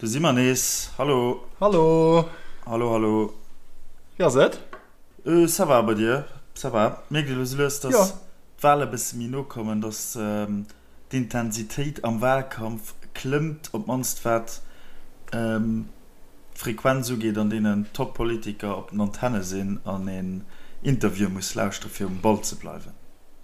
Do si mer nees. Hallo. Hallo. Hallo, hallo. Wéi ass et? Ça va, bei dir? Ça va. Mierkt ee lues a lues, dass d'Wale bësse méi no kommen, dass d'Intensitéit am Walkampf klëmmt, op d'mannst wat d'Frequenz ugeet, an deenen d'Top-Politiker op den Antenne sinn an een Interview muss lauschtere fir um Ball ze bleiwen.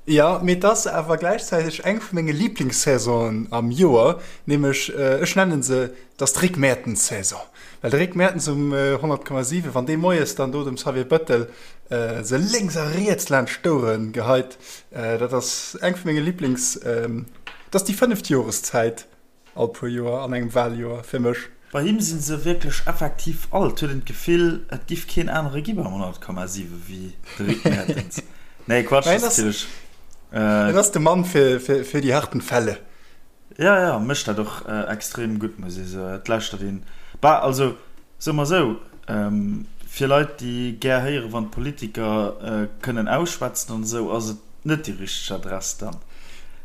Jo, mee et ass awer gläichzäiteg eng vu menge Liblingssaison'en am Joer, nämlech, ech nennen se, et ass d'Rick Mertens-Saison. Well de Rick Mertens um 100,7, wann dee moies dann do dem Xavier Bettel se lénks a riets laanscht d'Ouere geheit, dat ass eng vu menge Liblings, et ass déi fënneft Joreszäit. All puer Joer an engem Wahljoer fir mech. Bei him sinn se wierklech effektiv all. Et huet een d'Gefill, et giff keen anere gi beim 100,7 wéi de Rick Mertens. Nee, Quatsch, dat ass natierlech. En ass de Mann fir déi harten Fälle. Jo, jo, mécht dat och extrem gutt, muss ee soen. Et lauschtert een, bah, also soe mer esou, fir Leit, déi gär héieren, wann d'Politiker kënnen ausschwätzen an esou, ass et net déi richteg Adress dann.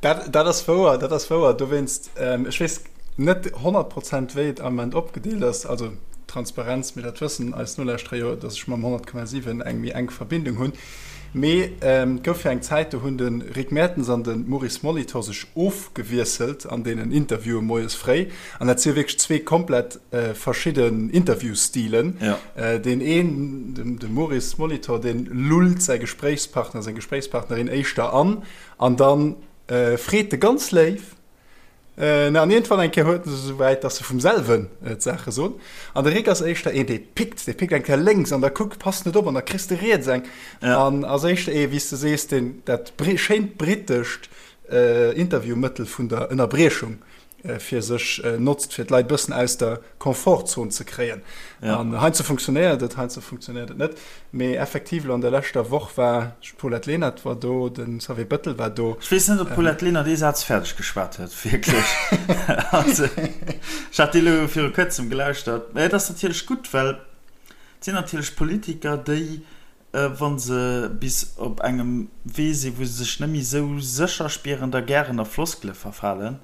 Dat, dat ass wouer, dat ass wouer. Dowéinst, ech weess net 100 Prozent, wéi et am Ament opgedeelt ass, also Transparenz, mee dat wëssen eis Nolauschterer jo, datt ech mam 100,7 eng méi enk Verbindung hunn. Mee et gouf jo eng Zäit, do hunn de Rick Mertens an de Maurice Molitor sech ofgewiesselt an deenen Interviewe moies fréi. An dat si jo wierklech zwee komplett verschidden Interviewstilen. Deen een, de Maurice Molitor, dee lullt säi Gespréichspartner, seng Gespréichspartnerin éischter an, an da freet e ganz léif, an iergendwann eng Kéier huet en se esouwäit, datt se vum selwen d'Saache soen. An de Rick ass éischter een, dee pickt, dee pickt eng Kéier lénks an da kuckt, passt net op an da kriss de riets eng. An ass éischter ee, wéi s de sees, deen dat schéint brittescht Interviewmëttel vun der Ënnerbriechung fir sech notzt, fir d'Leit bëssen aus der Komfortzon ze kréien. An heiansdo funktionéiert et, heiansdo funktionéiert et net. Mee effektiv elo an der leschter Woch war d'Paulette Lenert war do, de Xavier Bettel war do. Ech weess net, ob d'Paulette Lenert ee Saz fäerdeg geschwat huet, wierklech. Also, ech hat déi elo viru kuerzem gelauschtert. Mä et ass natierlech gutt, well et sinn natierlech Politiker, déi wa se bis op engem Wee sinn, wou se sech net méi esou sécher spieren, da gären a Floskele verfalen.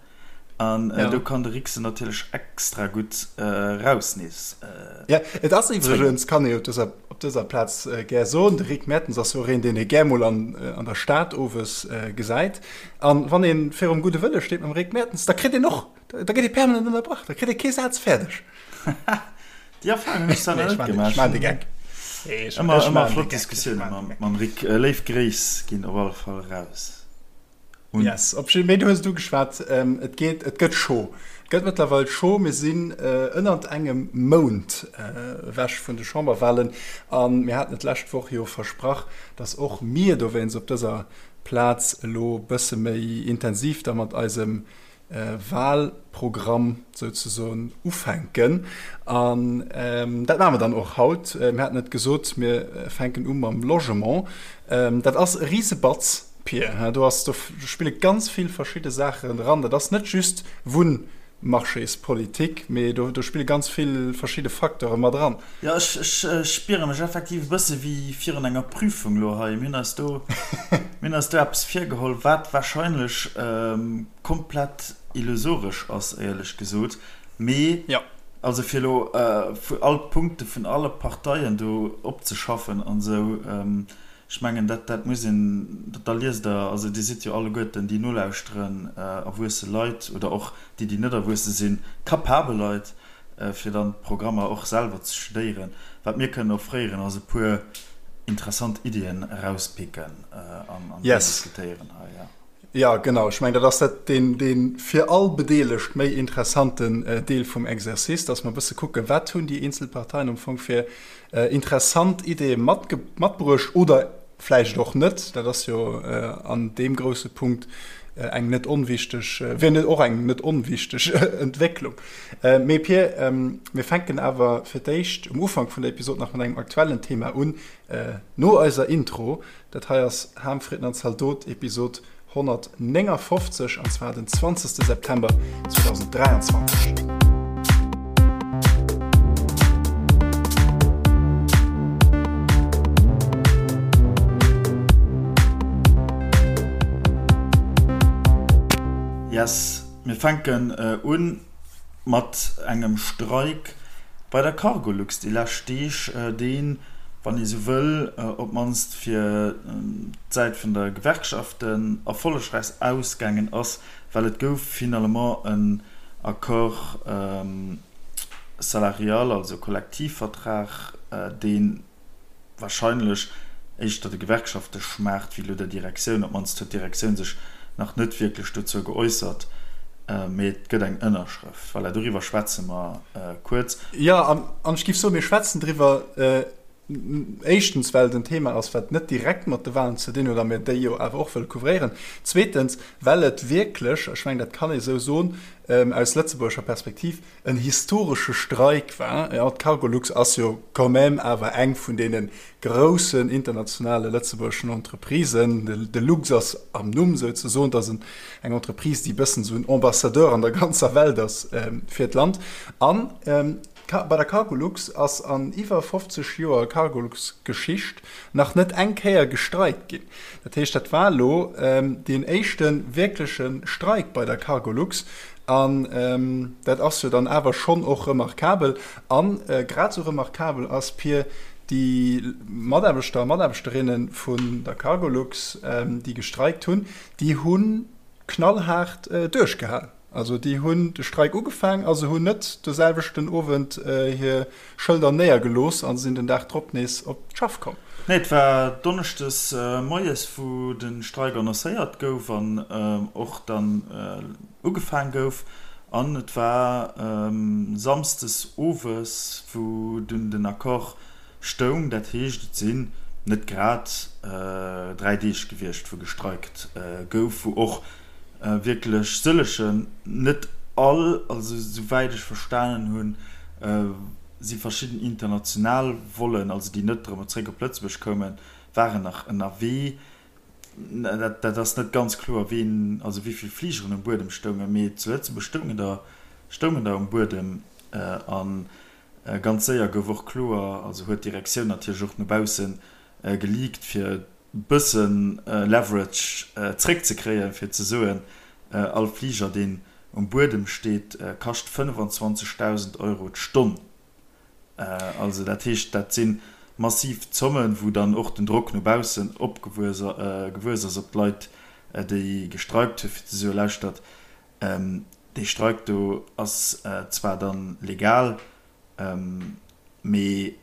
An do kann de Rick se natierlech extra gutt raus nees Jo, et ass iwwregens, kann ee op dëser, op dëser Plaz gär soen, de Rick Mertens ass jo och een, deen ee gär mol an, an der Stad owes gesäit. An wann ee virum Gudde Wëlle steet mam Rick Mertens, da kritt een och, da gëtt ee permanent ënnerbrach, da kritt ee kee Saz fäerdeg. Déi Erfahrung hunn ech selwer net gemaach. Ech maan de Geck. Ëmmer, ëmmer flott Diskussioune mam, mam Rick. Léif Gréiss ginn op alle Fall raus un. Yes, op jidde, mee du hues et ugeschwat, et geet, et gëtt scho. Et gëtt mëttlerweil scho. Mir sinn ënnert engem Mount ewech vun de Chamberwahlen a mir haten et d'lescht Woch jo versprach, dass och mir dowéinst op dëser Plaz elo bësse méi intensiv da mat eisem Wahlprogramm souzesoen ufänken. An dat maache mer dann och haut. Mir haten et gesot, mir fänken u mam Logement. Dat ass e Risebatz, Pir. Do ass, do spille ganz vill verschidde Saachen eran. Dat ass net just Wunnmarchéspolitik, mee do spille ganz vill verschidde Facteure mat eran. Jo, ech spiere mech effektiv e bësse wéi virun enger Prüfung elo hei. Mir hunn eis do, mir hunn eis do eppes virgeholl, wat warscheinlech komplett illusoresch ass, éierlech gesot. Mee also fir elo all d'Punkte vun alle Parteien do opzeschaffen an esou, ech mengen, dat, dat muss een, da liest Der, also Dir sidd jo alleguerten, déi nolauschteren, erwuesse Leit oder och déi, déi net erwuesse sinn, capabel Leit, fir dann d'Programmer och selwer ze studéieren. Wat mir kënnen offréieren, ass e puer interessant Iddien erauspicken an déi diskutéieren hei. Jo. Jo, genau. Ech mengen, dat ass dat deen, dee fir all Bedeelegt méi interessanten Deel vum Exercice, dass mer e bësse kucken, wat hunn déi eenzel Parteien am Fong fir interessant Ideeë matbruecht oder vläicht och net. Dat ass jo an deem grousse Punkt eng net onwichteg, wier net och eng net onwichteg Entwécklung. Mee Pir, mir fänken awer fir d'éischt um Ufank vun der Episod nach mat engem aktuellen Thema un, no eiser Intro. Dat hei ass Ham, Fritten an Zaldot, Episod 159, an zwar den 20. September 2023. Yes, mir fänken un. Mat engem Streik bei der Cargolux déi lescht Deeg, deen, wann ee sou wëll, op d'mannst fir d'Säit vun der Gewerkschaften erfollegräich ausgaangen ass, well et gouf finalement en Accord salarial, also Kollektivvertrag, deen, wahrscheinlech éischter de Gewerkschafte schmaacht wéi elo der Direktioun. Op d'mannst huet d'Direktioun sech nach net wierklech dozou geäussert, mee et gëtt eng Ënnerschrëft. Voilà, doriwwer schwätze mer kuerz. Jo, an ech géif soen, mir schwätzen driwwer, éischtens, well et en Thema ass, wat net direkt mat de Wahlen ze dinn huet a mir déi jo awer och wëlle couvréieren, zweetens, well et wierklech, ech mengen, dat kann ee sou soen, aus lëtzebuergescher Perspektiv, en historesche Streik war. Jo, d'Cargolux ass jo quand même awer eng vun deene groussen internationale lëtzebuergeschen Entreprisen. De Lux ass am Numm souzesoen. Et ass eng Entreprise, déi e bëssen esou en Ambassadeur an der ganzer Welt ass fir d'Land. An bei der Cargolux ass an iwwer 50 Joer Cargolux-Geschicht nach net eng Kéier gestreikt ginn. Dat heescht, dat war elo deen éischte wierkleche Streik bei der Cargolux. An dat ass jo dann awer schonn och remarkabel. A grad esou remarkabel ass, Pir, déi Mataarbechter a Mataarbechterinne vun der Cargolux, déi gestreikt hunn, déi hu knallhaart duerchgehal. Also déi hunn de Streik ugefaang a se hunn net de selwechten Owend hir Schëlder néiergelooss a sinn den Dag drop nees op d'Schaff komm. Nee, et war donneschdes moies, wou de Streik annoncéiert gouf an och dann ugefaang gouf. An et war samsdes owes, wou dunn den Accord stoung. Dat heescht, et sinn net grad 3 Deeg gewiescht, wou gestreikt gouf, wou och wierklech sëllegen, net all, also souwäit ech verstanen hunn, si verschidden international Vollen, also déi net erëm zréck op Lëtzebuerg koumen, waren nach ënnerwee. Dat ass net ganz kloer, ween, also wéi vill Fligeren um Buedem stoungen, mee zu Lëtzebuerg stoungen der, stoungen der um Buedem. A ganz séier gouf och kloer, also huet d'Direktioun natierlech och no bausse geleakt, fir bësse Leverage zréckzekréien, fir ze soen, all Fliger, deen um Buedem steet, kascht 25.000 Euro d'Stonn. Also dat heescht, dat si massiv Zommen, wou dann och den Drock no baussen opgewuess ass op d'Leit, déi gestreikt hunn, fir ze soen, Lauschtert, dee Streik do ass zwar dann legal, mee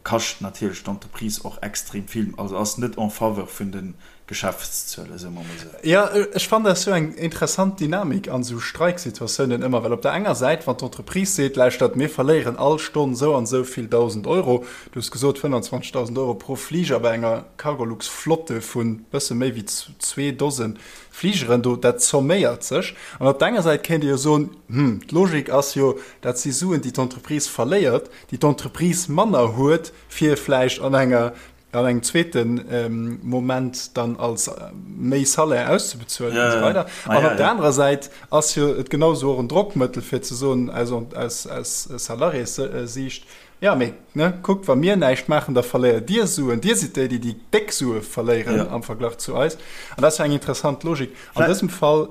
kascht natierlech d'Entreprise och extrem vill, also ass net en faveur vun de Geschäftszuelen, soe mer mol esou. Jo, ech fannen dat ass jo eng interessant Dynamik an esou Streiksituatiounen ëmmer, well op der enger Säit, wann d'Entreprise seet, lauschtert, mir verléieren all Stonn esou an esou vill 1.000 Euro, du hues gesot 25.000 Euro pro Fliger bei enger Cargolux-Flotte vu bësse méi wéi zwee Dose Fligeren do, dat zomméiert sech. An op der enger Säit kéint ee jo soen, hm, d'Logik ass jo, dat si Suen, déi d'Entreprise verléiert, déi d'Entreprise manner huet, fir vläicht an enger, an engem zweete Moment dann als méi Salaire auszebezuelen an esou weider. An op der anerer Säit ass jo et genau esou och en Drockmëttel, fir ze soen aus, aus, aus Salariéssiicht, jo, mee ne, kuckt, wa mir näischt maachen, da verléiert Dir Suen, Dir sidd déi, déi déi déck Sue verléieren am Verglach zu eis. An dat ass jo eng interessant Logik. An dësem Fall,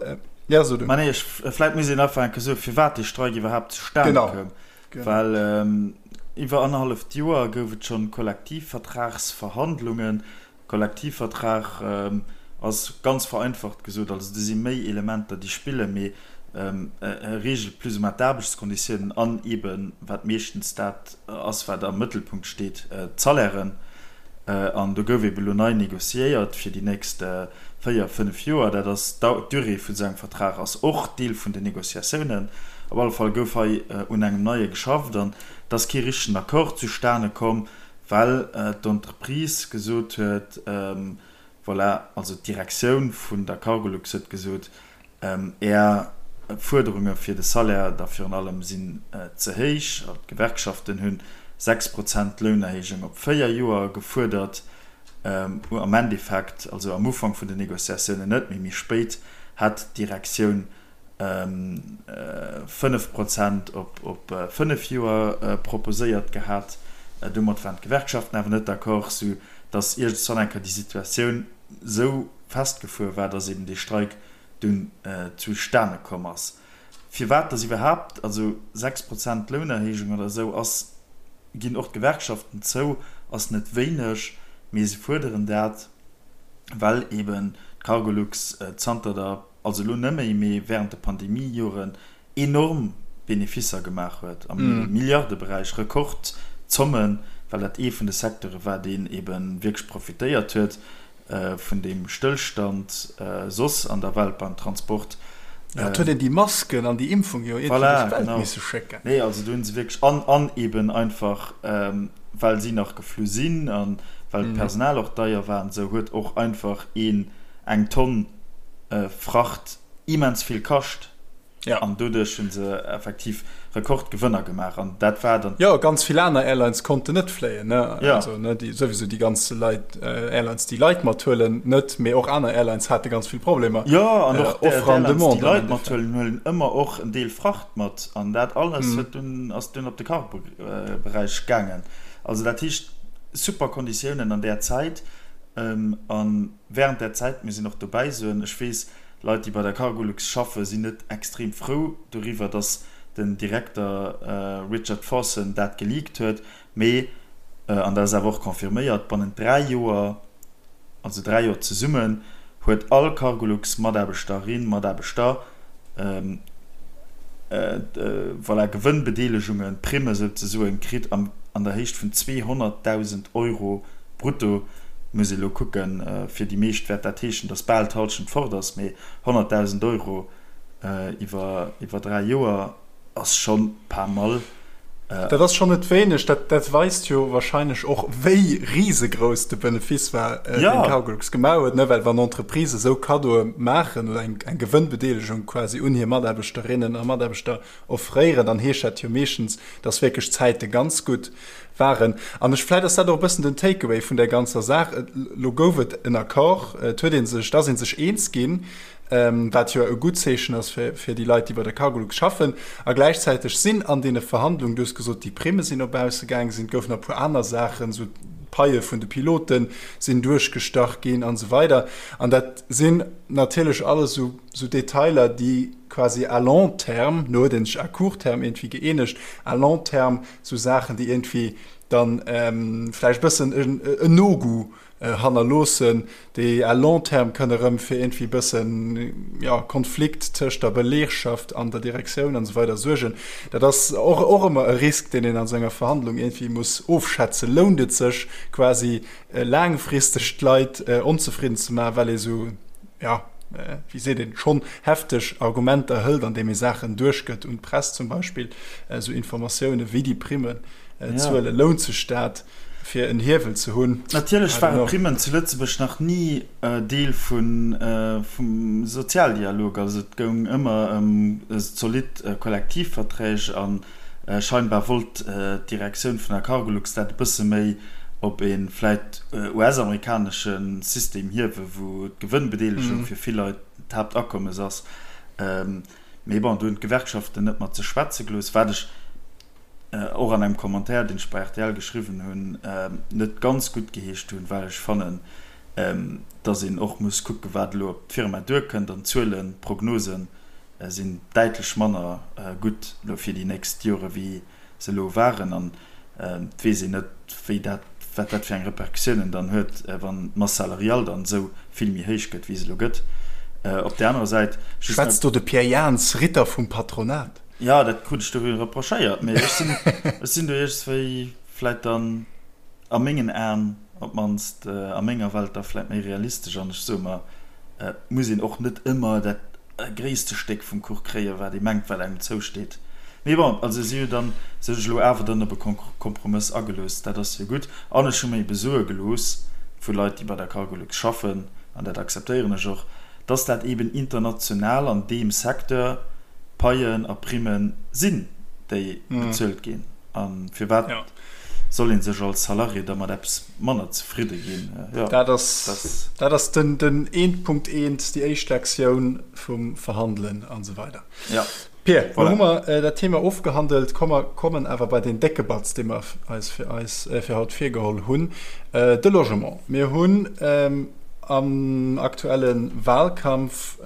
jo, so du. Ma nee, ech, vläicht muss een einfach eng Kéier soen, firwat dee Streik iwwerhaapt zustane koum. Well iwwer annerhalleft Joer gouf et schonn Kollektivvertragsverhandlungen. Kollektivvertrag ass ganz vereinfacht gesot, also do si méi Elementer déi spillen, mee e reegelt plus ou moins d'Aarbechtskonditiounen an eeben, wat meeschtens dat ass wat am Mëttelpunkt steet, d'Salairen. An do gouf eeben elo nei négociéiert fir déi nächst 4, 5 Joer. Dat ass d'Durée vun esou engem Vertrag ass och Deel vun den Négociatiounen. Op alle Fall gouf hei un engem neie geschafft an et ass kee richtegen Accord zustane komm, well d'Entreprise gesot huet, voilà, also d'Direktioun vun der Cargolux huet gesot, Är Fuerderunge fir de Salaire da virun allem sinn ze héich. D'Gewerkschaften hu 6 Prozent Lounerhéijung op 4 Joer gefuerdert. Am Endeffekt, also am Ufank vun den Negociatiounen net, mee méi spéit hat d'Direktioun 5 Prozent op 5 Joer proposéiert gehat. Domat waren d'Gewerkschaften awer net d'accord, sou datt iergendwann eng Kéier déi Situatioun sou festgefuer war, datt eben dee Streik dunn zustane komm ass. Firwat dass iwwerhaapt, also 6 Prozent Lounerhéijung oder esou ass, ginn och d'Gewerkschaften zou, ass net wéineg, mee se fuerderen dat, well eben d'Cargolux zanter der, also elo net méi, mee während de Pandemiejoren enorm Beneficer gemaach huet am Milliardeberäich, Rekordzommen, well dat ee vun de Secteure war, deen ebe wierklech profitéiert huet vun deem Stëllstand soss an der Welt beim Transport. Jo, et huet een déi Masken an déi Impfung jo iergendwéi duerch d'Welt misse schécken. Nee, also do hu se wierklech, an an eben einfach well si nach geflu sinn a well d'Personal och deier war an esou, huet och einfach een eng Tonn Fracht immens vill kascht. Ja. An doduerch hu se effektiv Rekordgewënner gemaach an dat war dann. Jo, ganz vill aner Airlines konnten net fléien, ne? Ja. Also, ne, déi, souwisou déi ganz Leit, Airlines, déi Leit mathuelen, net, mee och aner Airlines hate ganz vill Problemer. Jo, an och Offre an Demande. Déi Leit mathuelen, huelen ëmmer och en Deel Fracht mat an dat alles huet dunn, ass dunn op de Cargo-Beräich gaangen. Also dat heescht, super Konditiounen an där Zäit. A wärend där Zäit, mir sinn och dobäi soen, ech weess, Leit, déi bei der Cargolux schaffen, sinn net extrem frou doriwwer, datt den Direkter Richard Forson dat geleakt huet. Mee, an dat ass awer och confirméiert, bannent 3 Joer, also 3 Joer zesummen, huet all Cargolux-Mataarbechterin, Mataarbechter voilà, Gewënnbedeelegungen, Primme souzesoen, kritt an der Héicht vun 200.000 Euro brutto. Muss ee lo kucken, fir déi meescht wäert dat heeschen, datt bal d'Hallschent fort ass, mee 100.000 Euro iwwer 3 Joer ass schonn pas mal. Dat ass schonn net wéineg. Dat weist jo wahrscheinlech och, wéi risegrouss de Benefice war, deen Cargolux gemaach huet. Well wann Entreprises esou Kaddoe maachen oder eng Gewënnbedeelegung quasi un hir Mataarbechterinnen a Mataarbechter offréieren, dann heescht dat jo meeschtens, dass wierklech d'Zäite ganz gutt waren. An ech, vläicht ass dat och e bëssen den Takeaway vun där ganzer Saach, Elo gouf et en Accord, et huet ee sech, et ass ee sech eens ginn, wat jo e gutt Zeechen ass fir déi Leit, déi bei der Cargolux schaffen. A gläichzäiteg sinn an deene Verhandlungen, du hues gesot, déi Primme sinn no bausse gaangen, sinn, et goufen nach e puer aner Saachen, esou d'Paie vun de Pilote sinn duerchgestach ginn an esou weider. An dat sinn natierlech alles esou Detailer, déi quasi à long terme, elo huet ee sech à court terme iergendwéi gëeenegt, à long terme esou Saachen, déi iergendwéi dann vläicht e bëssen en No-Goût hannerloossen, déi à long terme kënne erëm fir iergendwéi e bëssen, jo, Konflikt tëscht der Belegschaft an der Direktioun an esou weider suergen. Dat ass och, och ëmmer e Risk, deen een an esou enger Verhandlung iergendwéi muss ofschätzen. Lount et sech quasi laangfristeg d'Leit onzefridden ze maachen, well ee sou, jo, wéi seet een, schonn hefteg Argumenter hëlt, andeem ee Saachen duerchgëtt un d'Press zum Beispill, esou Informatioune wéi déi Primmen zuelen, lount sech dat? fir en Hiewel ze hunn. Natierlech ware Primmen zu Lëtzebuerg nach ni Deel vum Sozialdialog. Also et goung ëmmer ëm zolidd Kollektivverträg a scheinbar wollt d'Direktioun vun der Cargolux dat e bësse méi op ee vläit US-amerikanesche System hiewen, wou d'Gewënnbedeelegung fir vill Leit d'Haaptakommes ass. Mee bon, do hunn d'Gewerkschaften net mat sech schwätze gelooss, wat ech och an engem Commentaire, deen ech bei rtl geschriwwen hunn, net ganz gutt geheescht hunn, well ech fannen, dass een och muss kucken, wat elo op d'Firma duerkënnt. An d'Zuelen, d'Prognose sinn däitlech manner gutt elo fir déi nächst Jore wéi se elo waren. An et weess een net, wéi dat, wat dat fir eng Repercussiounen dann huet, wann d'Masse salariale dann esou vill méi héich gëtt, wéi se elo gëtt. Op där anerer Säit. Schwätzt do de Pierre Jans, Ritter vum Patronat? Jo, dat krut ech do reprochéiert, mee ech sinn, ech sinn do iergendswéi vläit dann a mengen Aen op d'mannst, a menger Welt da vläit méi realistesch an ech soe mer, et muss een och net ëmmer dat gréisste Stéck vum Kuch kréien, wat ee mengt, wat engem zousteet. Mee bon, also si hu dann sech elo awer dann op e Kompromëss agelooss, dat ass jo gutt. An ech hu mer ebe soe gelooss vu Leit, déi bei der Cargolux schaffen, an dat akzeptéieren ech och, dass dat eben international an deem Secteur Paien a Primme sinn, déi bezuelt ginn. A firwat soll ee sech als Salarié da mat eppes manner zefridde ginn? Dat ass dat ass den den eent Punkt eent, déi éischt Lektioun vum Verhandelen an esou weider. Pir, lo hu mer dat Thema ofgehandelt. Komm mer kommen awer bei deen décke Batz, dee mer eis fir eis fir haut virgeholl hunn, de Logement. Mir hunn. am aktuelle Wahlkampf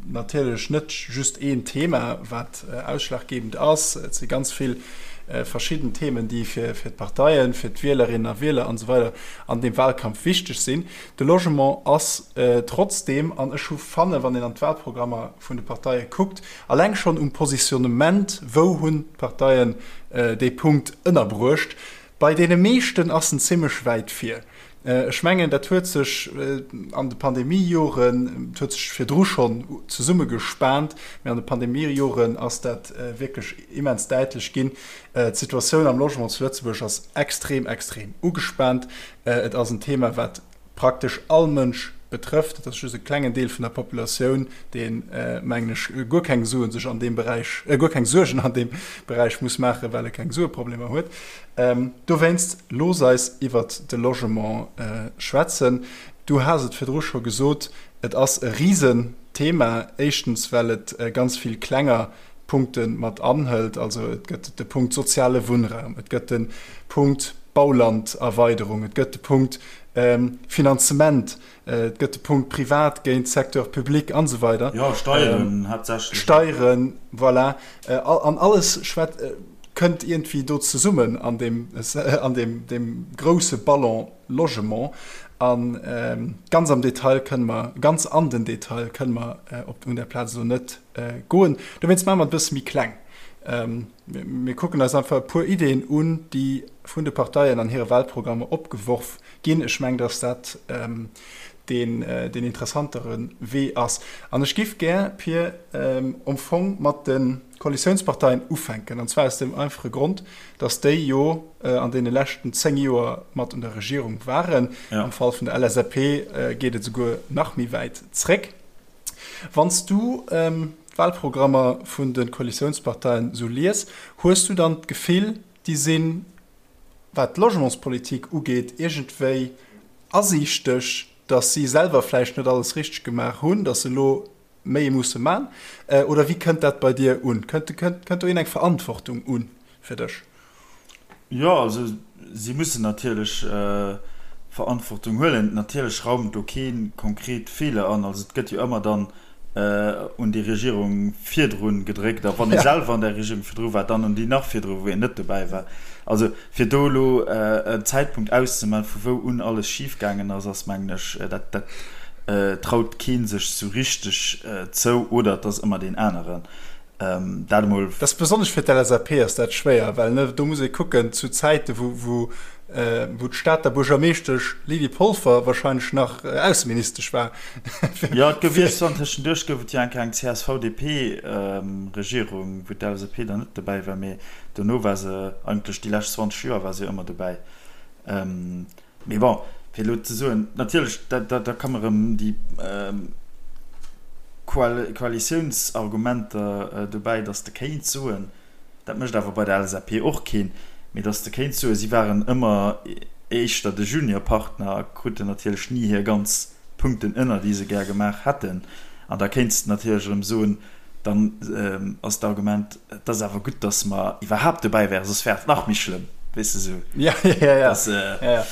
natierlech net just een Thema, wat ausschlaggebend ass. Et si ganz vill verschidden Themen, déi fir d'Parteien, fir d'Wielerinnen a Wieler an esou weider an deem Wahlkampf wichteg sinn. De Logement ass trotzdeem, an ech hu fanne wann een an d'Wahlprogrammer vun de Parteie kuckt, alleng schonn um Positionnement, wou hunn d'Parteien dee Punkt ënnerbruecht, bei deene meeschten ass en zimmlech wäit vir. Ech mengen, dat huet sech an de Pandemiejoren, et huet sech virdru schonn zesummegespaant, mee an de Pandemiejoren ass dat wierklech immens däitlech ginn. D'Situatioun am Logement zu Lëtzebuerg ass extrem, extrem ugespaant. Et ass en Thema, wat praktesch all Mënsch betrëfft. Et ass just e klengen Deel vun der Populatioun, deen, mengen ech, guer keng Suen sech an deem Beräich, guer keng Suergen an deem Beräich muss maachen, well e keng Sueproblemer huet. Dowéinst, looss eis iwwert de Logement schwätzen. Du has et virdru scho gesot, et ass e Risenthema. Éischtens, well et ganz vill klenger Punkte mat anhëlt. Also et gëtt de Punkt soziale Wunnraum, et gëtt de Punkt Baulanderweiderung, et gëtt de Punkt Finanzement, et gëtt de Punkt privat géint Secteur public an esou weider. Jo, Steieren haaptsächlech. Steieren, voilà. An alles schwät, kënnt iergendwéi do zesummen an deem, an deem, deem grouse Ballon Logement. A ganz am Detail kënne mer, ganz an den Detail kënne mer op, un där Plaz elo net goen. Dowéinst maache mer et e bësse méi kleng. Mir kucken eis einfach e puer Ideeën un, déi vun de Parteien an hire Wahlprogrammer opgeworf ginn. Ech mengen, dass dat deen interessantere Wee ass. An ech giff gär, Pir, am Fong mat de Koalitiounsparteien ufänken, an zwar aus deem einfache Grond, dass déi jo an deene leschten 10 Joer mat un der Regierung waren. Am Fall vun der LSAP geet et esouguer nach méi wäit zréck. Wann s du d'Wahlprogrammer vun de Koalitiounsparteien esou lies, hues du dann d'Gefill, déi sinn, wat d'Logementspolitik ugeet, iergendwéi asiichteg, datt si selwer vläicht net alles richteg gemaach hunn, datt se elo méi musse man? Oder wéi kënnt dat bei dir un? Kënnt do iergendeng Verantwortung un fir dech? Jo, also si mussen natierlech Verantwortung huelen. Natierlech raumt do kee konkret Feeler an. Also et gëtt jo ëmmer dann un déi Regierung virdru gedréckt a wann ee selwer an där Regierung virdru war, dann un déi nach virdru, wou een net dobäi war. Also fir do elo en Zäitpunkt auszemaachen, vu wou un alles schifgaangen ass, ass mengen ech, dat dat traut kee sech sou richteg zou oder et ass ëmmer deen aneren. Dat emol. Dat ass besonnesch fir d'LSAP ass dat schwéier, well ne do muss ee kucken zu Zäite wou wou wou d'Stater Buergermeeschtesch Lydie Polfer wahrscheinlech nach Ausseministesch war. Jo, et gouf iergendwann tëschenduerch gouf et jo eng Kéier eng CSV-DP-Regierung, wou d'LSAP dann net dobäi war, mee dono war se eigentlech déi lescht 20 Joer war se jo ëmmer dobäi. Mee bon, fir elo ze soen, natierlech, da da komme rëm déi Koalitiounsargumenter dobäi, datt s de kéints soen, dat mécht awer bei der LSAP och keen, mee datt s de kéints soen, si waren ëmmer éischter de Juniorpartner a kruten natierlech ni hir ganz Punkten ënner, déi se gär gemaach hätten. An da kéints de natierlech erëm soen, Dann ass d'Argument, et ass awer gutt, datt mer iwwerhaapt dobäi wären, soss wär et nach méi schlëmm, weess de sou. Ja, ja, ja. Dass, ja, ja.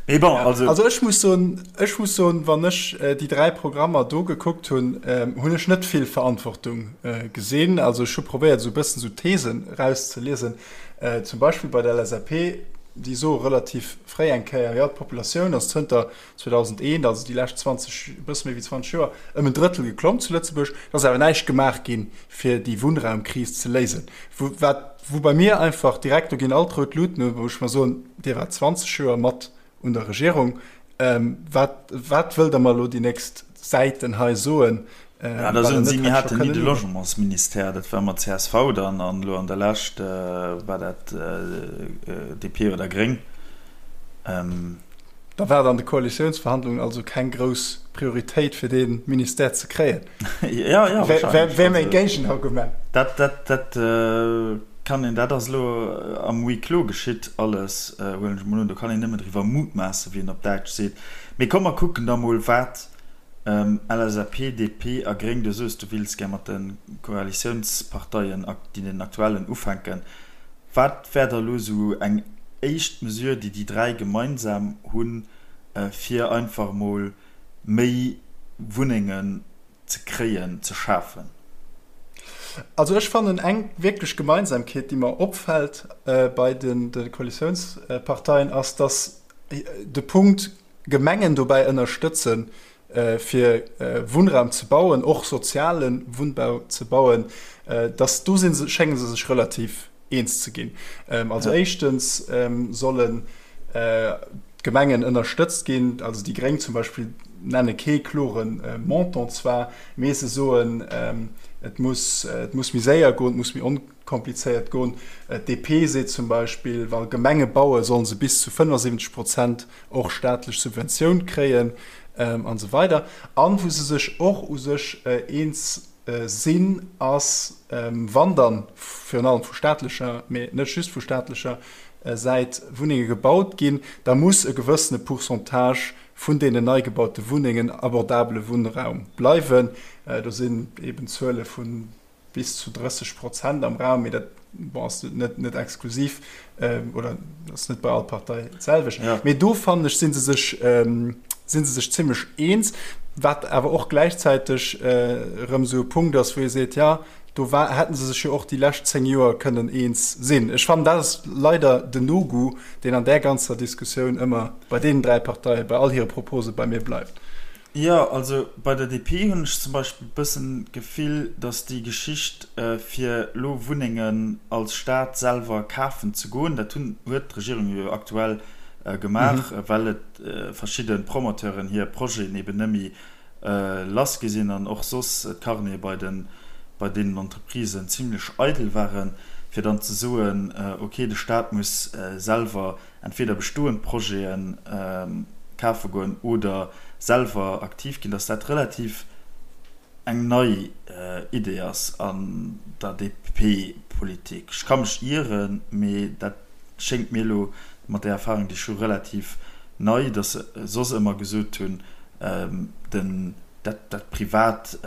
Mee bon, also. Also ech muss soen, ech muss soen, wann ech déi 3 Programmer do gekuckt hunn, hunn ech net vill Verantwortung gesinn. Also ech hu probéiert esou e bëssen esou Thesen erauszeliesen. Zum Beispill bei der LSAP, déi soe relativ fréi eng Kéier, jo d'Populatioun ass zënter 2001, also déi lescht 20, e bësse méi wéi 20 Joer, ëm en Drëttel geklomm zu Lëtzebuerg. Et ass awer näischt gemaach ginn, fir déi Wunnraumkris ze léisen. Wou, wat, wou bei mir einfach direkt, do ginn all d'rout Luuten un, wou ech mer soen, Dir waart 20 Joer mat un der Regierung, wat, wat wëllt Der mer elo déi nächst Säiten hei soen? Ja, da soen si, mir haten ni de Logementsministère, dat war mat csv dann, an elo an der Lescht war dat DP oder Gréng. Da war et an de Koalitiounsverhandlungen also keng grouss Prioritéit fir dee Ministère ze kréien. Ja, ja, wahrscheinlech. Wär mäi Géigenargument. Dat, dat, dat kann een, dat ass elo am Huis clos geschitt alles, huelen ech emol un. Do kann een nëmmen driwwer mutmaassen, wéi een op Däitsch seet. Mee komm, mer kucken da mol, wat LSAP, DP a Gréng, du soos, du wills gär mat de Koalitiounsparteien, den aktuellen, ufänken. Wat wär da lo esou eng éischt Mesure, déi déi 3 gemeinsam hunn, fir einfach emol. méi Wunnengen ze kréien, ze schafen? Also ech fannen eng wierklech Gemeinsamkeet, déi mer opfält bei de Koalitiounsparteien, ass, datt de Punkt Gemengen dobäi ënnerstëtzen, fir Wunnraum ze bauen, och soziale Wunnbau ze bauen, datt do si se, schénge se sech relativ eens ze ginn. Also éischtens sollen d'Gemengen ënnerstëtzt ginn, also déi Gréng zum Beispill nenne kee klore Montant zwar, mee se soen, et muss, et muss méi séier goen, et muss méi onkomplizéiert goen. D'DP seet zum Beispill, wa Gemenge bauen, solle se bis zu 75 Prozent och staatlech Subventioun kréien an esou weider. An wou se sech och u sech eens sinn, ass, wann dann virun allem vu staatlecher, mee net just vu staatlecher Säit Wunnenge gebaut ginn, da muss e gewëssene Pourcentage vun deenen nei gebaute Wunnengen abordabele Wunnraum bleiwen. Do sinn eben Zuele vu bis zu 30 Prozent am Raum, mee dat bon, ass net, net exklusiv oder ass net bei all Partei d'selwecht. Ja. Mee do fannen ech, si se sech, si se sech zimmlech eens, wat awer och gläichzäiteg erëm esou e Punkt ass, wou ee seet, ja, do war, hätten se sech jo och déi lescht 10 Joer kënnen eens sinn. Ech fannen, dat ass leider den No-Goût, deen an där ganzer Diskussioun ëmmer bei deenen 3 Parteien, bei all hire Propose bei mir bleift. Jo, also bei der DP hunn ech zum Beispill e bëssen d'Gefill, datt déi Geschicht fir elo Wunnengen als Staat selwer kafen ze goen, dat hunn, huet d'Regierung jo aktuell gemaach, well et verschidde Promoteuren hir Projeten eben net méi lass gi sinn an och soss d'Carnete bei den, bei deenen Entreprisen zimlech eidel waren, fir dann ze soen, okay, de Staat muss selwer entweder bestoend Projete kafe goen oder selwer aktiv ginn, dass dat relativ eng nei Idee ass an der DP-Politik. Ech ka mech ieren, mee dat schéngt mir elo mat där Erfahrung, déi ech hu, relativ nei, dass se soss ëmmer gesot hunn, den, dat, dat Privat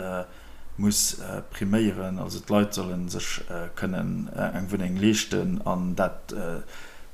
muss priméieren, also d'Leit solle sech kënnen eng Wunneng leeschten an dat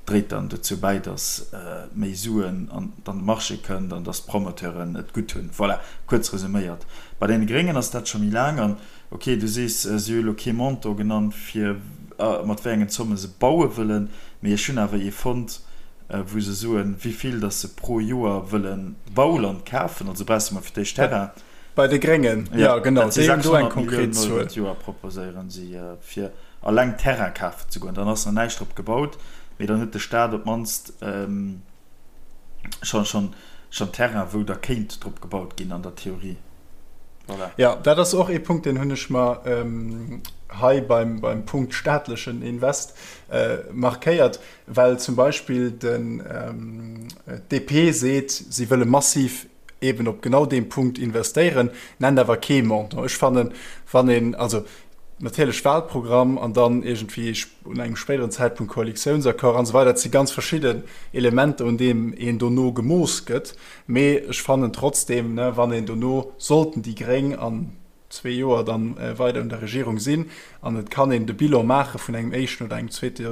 dréit dann dozou bäi, datt méi Suen an de Marché kënnt an datt d'Promoteuren et gutt hunn. Voilà, kuerz resuméiert. Bei deene Gréngen ass dat scho méi laang an ok, du sees, si hu elo kee Montant genannt fir mat wéi engen Zomme se baue wëllen, mee ech hunn awer ee fonnt, wou se soen, wéi vill datt se pro Joer wëlle Bauland kafen, also brauchs de mol fir d'éischt Terrain. Bei de Gréngen, jo genau, déi hunn do eng konkret Zuel. 600 Milliounen Euro d'Joer proposéieren si fir alleng Terrain kafen ze goen. Dann ass nach näischt drop gebaut, mee dann huet de Staat op d'mannst schonn Terrain, wou da kéint drop gebaut ginn an der Theorie. Voilà. Jo, dat ass och ee Punkt, deen hunn ech mer hei beim Punkt staatlechen Invest markéiert, well zum Beispill den d'DP seet, si wëlle massiv eben op genau deem Punkt investéieren, nennt awer kee Montant. Ech fannen, wann een, also natierlech Wahlprogramm an dann iergendwéi un engem spéideren Zäitpunkt Koalitiounsaccord an esou weider, dat si ganz verschidden Elementer, un deem een dono gemooss gëtt. Mee ech fannen trotzdeem, wann een dono, sollten déi Gréng an zwee Joer dann weider un der Regierung sinn an et kann een de Bilan maache vun engem éischten oder engem zweete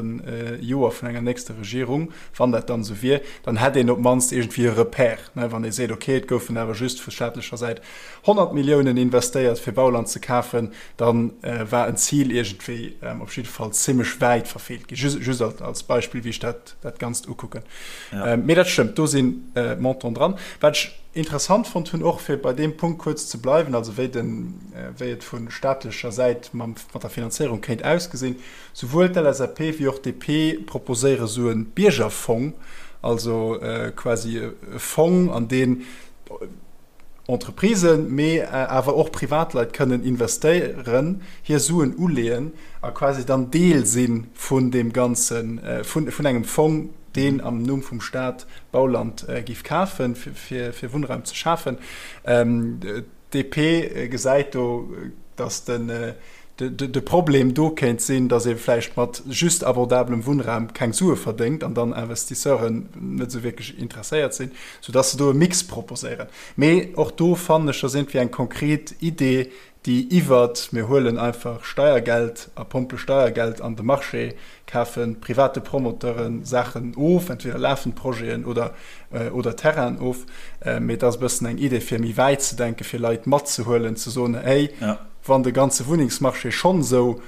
Joer vun enger nächster Regierung, wann dat dann esou wier, dann hätt een op d'mannst iergendwéi e Repère, wann ee seet, okay, et goufen awer just vu staatlecher Säit 100 Milliounen investéiert fir Bauland ze kafen, da war en Zil iergendwéi op jidde Fall zimmlech wäit verfeelt ginn. Just als Beispill, wéi ech dat dat Ganzt ukucken. Mee dat stëmmt, do si Montanten dran. Wat ech interessant fonnt hunn, och fir bei deem Punkt kuerz ze bleiwen, also wéi den, wéi et vu staatlecher Säit mam, mat der Finanzéierung kéint ausgesinn, Souwuel d'LSAP wéi och d'DP proposéiere sou e Biergerfong, also quasi e Fong, an deen Entreprisen, mee awer och Privatleit kënnen investéieren, hir Suen uleeën a quasi dann Deel si vun deem Ganzen, vun engem Fong, deen am Numm vum Staat Bauland géif kafen, fir Wunnraum ze schafen. D'DP gesäit do, datt de Problem do kéint sinn, datt ee vläicht mat just abordabelem Wunnraum keng Sue verdéngt an dann Investisseuren net esou wierklech interesséiert sinn, soudatt se do e Mix proposéieren. Mee och do fannen ech, ass iergendwéi eng konkret Idee. déi iwwert, mir huelen einfach Steiergeld a pompe Steiergeld an de Marché, kafe private Promoteure Saachen of, entweder lafend Projeten oder, oder Terrainen of. Mee et ass e bëssen eng Idee, fir méi wäit ze denken, fir Leit matzehuelen, ze soen, hey, wann de ganze Wunnengsmarché schonn esou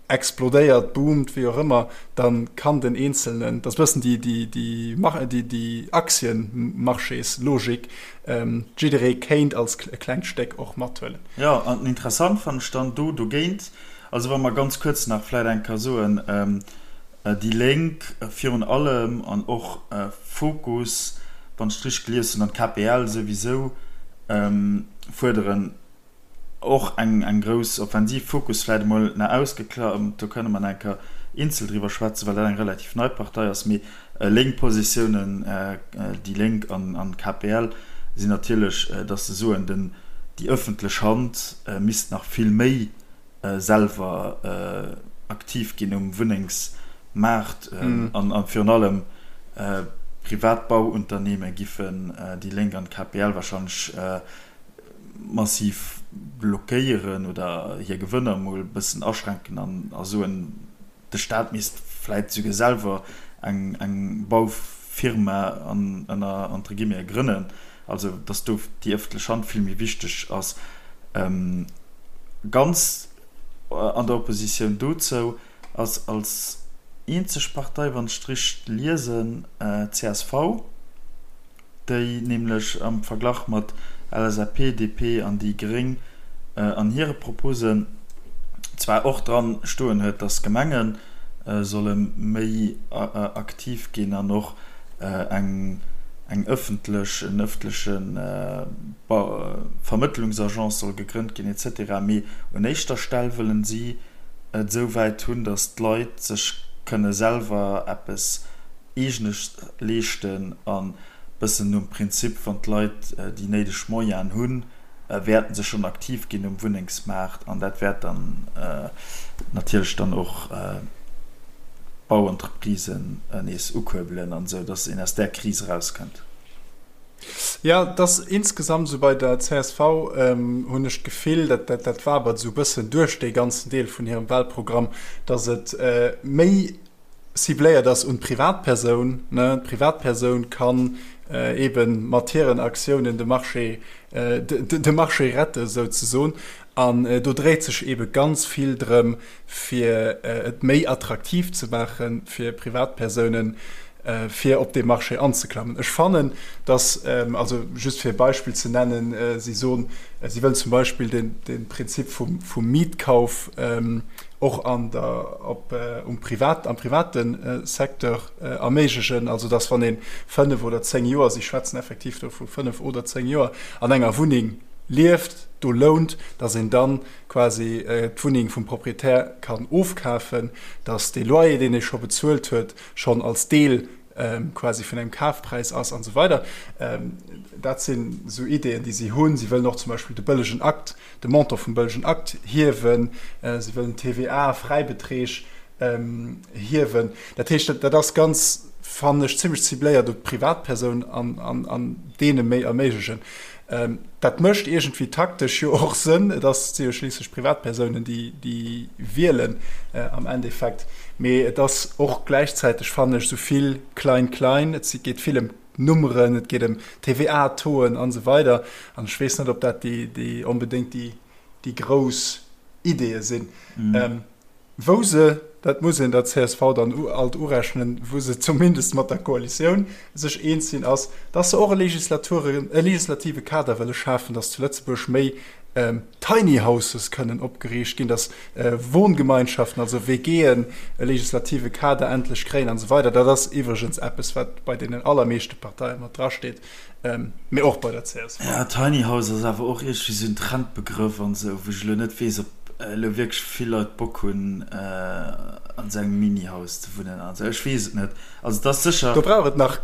explodéiert, boomt, wéi och ëmmer, da kann den Eenzelnen, dat ass e bëssen déi, déi, déi, déi, déi Aktienmarchéslogik, jidderee kéint als e klengt Stéck och mathuelen. Jo, an interessant fannen ech dann do dogéint, also wa mer ganz kuerz nach vläit eng Kéier soen, déi Lénk virun allem an och Fokus, wann ech et richteg gelies hunn, an d'KPL souwisou, fuerderen, Och eng eng grouss Offensiv. Fokus vläit emol nach ausgeklamt, do kënne mer nach eng Kéier eenzel driwwer schwätzen, well dat eng relativ nei Partei ass. Mee lénk Positiounen, déi Lénk an an d'KPL, sinn natierlech, datt se soen, den déi ëffentlech Hand misst nach vill méi selwer aktiv ginn um Wunnengsmaart an a virun allem privat Bauunternehme giffen déi Lénk an d'KPL wahrscheinlech massiv blockéieren oder hir Gewënner emol e bëssen aschränken an a soen, de Staat misst vläit souguer selwer eng eng Baufirma an ënner entre guillemets grënnen, also datt do déi ëffentlech Hand vill méi wichteg ass. Ganz an der Oppositioun dozou ass als eenzeg Partei, wann ech et richteg liesen, csv. déi nämlech am Verglach mat LSAP, DP an déi Gréng an hire Proposen zwar och dran stoen huet, dass Gemenge solle méi aktiv ginn an och eng eng ëffentlech, en ëffentleche Vermëttlungsagence soll gegrënnt ginn et cetera, mee un éischter Stell wëllen si et esou wäit hunn, dass d'Leit sech kënne selwer eppes Eegenes leeschten an bëssen nom Prinzip, wann d'Leit déi néideg Moyenen hunn, wäerten se schonn aktiv ginn um Wunnengsmaart an dat wäert dann natierlech dann och d'Bauentreprisen nees ukuerbelen an esou, dass een aus där Kris erauskënnt. Jo, et ass insgesamt esou bei der csv, hunn ech d'Gefill, dat dat wabert esou e bëssen duerch dee ganzen Deel vun hirem Wahlprogramm, dass et méi cibléiert ass un d'Privatpersoun, ne, d'Privatpersoun kann eebe mat hiren Aktiounen de Marché, de Marché rette souzesoen. An do dréit sech eebe ganz vill drëm, fir et méi attraktiv ze maache fir Privatpersounen, fir op dee Marché anzeklammen. Ech fannen, dass, also just fir e Beispill ze nennen, si soen, si wëllen zum Beispill de Prinzip vum Mietkauf och an der, op, um Privat, am private Secteur erméiglechen, also dass wann ee 5 oder 10 Joer, si schwätzen effektiv do vu 5 oder 10 Joer, an enger Wunneng lieft, do lount, dass een dann quasi d'Wunneng vum Proprietär kann ofkafen, dass dee Loyer, deen ee scho bezuelt huet, schonn als Deel quasi vun engem Kafpräis ass an esou weider. Dat sinn esou Ideeën, déi si hunn. Si wëllen och zum Beispill de bëllegen Akt, de Montant vum bëllegen Akt hiewen. Si wëllen d'TVA-Fräibeträg hiewen. Dat heescht, dat ass ganz, fannen ech, zimmlech cibléiert op d'Privatpersoun an deene méi erméiglechen. Dat mécht iergendwéi taktesch jo och Sënn. Et ass, si jo schliisslech Privatpersounen, déi, déi wielen am Endeffekt. Mee et ass och gläichzäiteg, fannen ech, esou vill Klein-Klein. Et geet vill ëm Nummeren, et geet ëm TVA-Tauxen an esou weider. An ech weess net, ob dat déi, déi onbedéngt déi, déi grouss Ideeë sinn. Wou se, dat muss een der csv dann alt urechnen, wou se zumindest mat der Koalitioun sech eens sinn, ass, dass se och e Legislaturen, e legislative Kader wëlle schafen, dass zu Lëtzebuerg méi Tiny Houses kënnen opgeriicht ginn, dass Wohngemeinschaften, also WGen, e legislative Kader endlech kréien an esou weider. Dat ass iwwregens eppes, wat bei deenen allermeeschte Parteie mat drasteet, mee och bei der csv. Ja, Tiny House ass awer och iergendwéi sou en Trendbegrëff an esou, wou ech elo net weess, ob elo wierklech vill Leit Bock hunn, an esou engem Mini-Haus ze wunnen an esou. Ech weess et net. Also et ass sécher. Do brauch et nach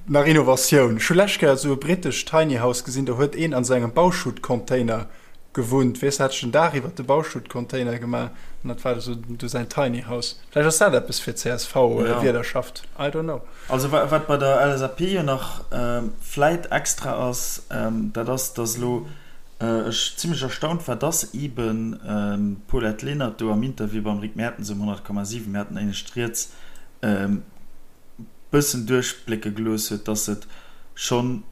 nach Innovatioun. Ech hu lescht Kéier esou e britescht Tiny House gesinn, do huet een an esou engem Bauschuttcontainer gewunnt. Weess, hat sech den Daach iwwert de Bauschuttcontainer gemaach an dat war esou du säin Tiny House. Vläicht ass dat eppes fir d'CSV-Wielerschaft, I don't know. Also wat bei der LSAP jo nach vläit extra ass, dat ass, datt elo. Ech zimmlech erstaunt war, dass eben d'Paulette Lenert do am Interview beim Rick Mertens um 100,7, mir haten éinescht rieds, bëssen duerchblécke gelooss huet, dass et schonn,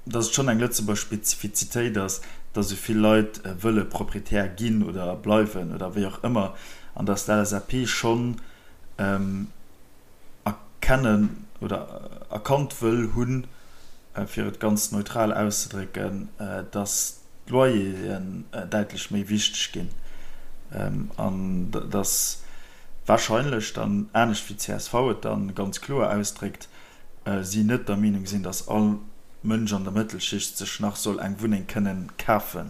dass et schonn eng Lëtzebuerg Spezifizitéit ass, dass esou vill Leit wëlle Proprietär ginn oder bleiwen oder wéi och ëmmer an dass d'LSAP schonn erkennen oder erkannt wëll hunn, fir et ganz neutral auszedrécken, dass d'Loyeren däitlech méi wichteg ginn an dass wahrscheinlech dann, anescht wéi csv et dann ganz kloer ausdréckt, si net der Meenung sinn, dass all Mënsch an der Mëttelschicht sech nach soll eng Wunneng kënnen kafe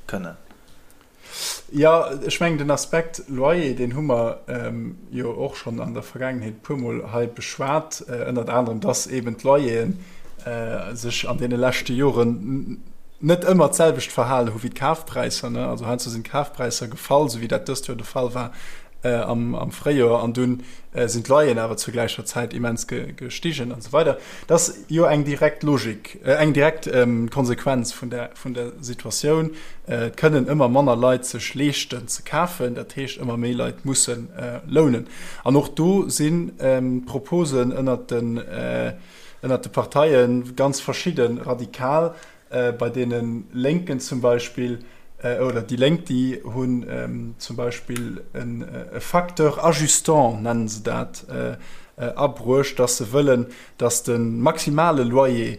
kënnen. Jo, ech mengen den Aspekt Loyer, deen hu mer jo och schonn an der Vergaangenheet e puermol hei beschwat, ënnert anerem, dass eeben d'Loyeren sech an deene leschte Joren net ëmmer d'selwecht verhalen hu wéi d'Kafpräisser. Also heiansdo sinn d'Kafpräisser gefall, esou wéi dat dëst Joer de Fall war am Fréijoer, an dunn sinn d'Loyeren awer zur gläicher Zäit immens gestigen an esou weider. Dat ass jo eng direkt Logik, eng direkt Konsequenz vun der vun der Situatioun. Et kënnen ëmmer manner Leit sech leeschten ze kafen, dat heescht ëmmer méi Leit musse lounen. An och do sinn d'Proposen ënnert den ënnert de Parteie ganz verschidde radikal. Bei deene Lénken zum Beispill, oder déi Lénk, déi hunn zum Beispill e Facteur ajustant, nennen se dat, abruecht, datt se wëllen, datt de maximale Loyer,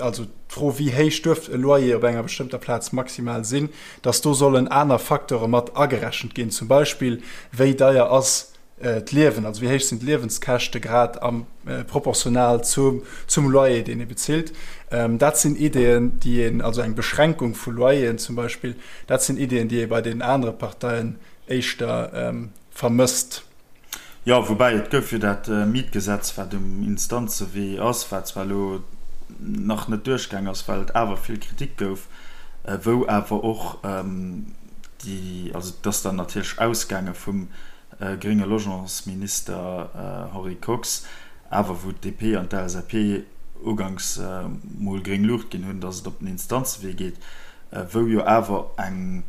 also d'Fro wéi héich duerf e Loyer op enger bestëmmter Plaz maximal sinn, datt do sollen aner Facteure mat agerechent ginn, zum Beispill wéi deier ass d'Liewen, also wéi héich sinn d'Liewenskäschte grad am proportional zum zum Loyer deen ee bezilt. Dat sinn Ideeën déi een, also eng Beschränkung vu Loyeren zum Beispill, dat sinn Ideeën déi ee bei den anere Parteien éischter vermësst. Jo, woubäi et gouf jo dat Mietgesetz, wat um Instanzewee ass, wat zwar elo nach net duerchgaang ass, well et awer vill Kritik gouf, wou awer och déi, also et ass dann natierlech ausgaange vum grénge Logementsminister Henri Kox, awer wou d'DP an d'LSAP uganks mol gréng Luucht ginn hunn, datt et op den Instanzewee geet, wou jo awer eng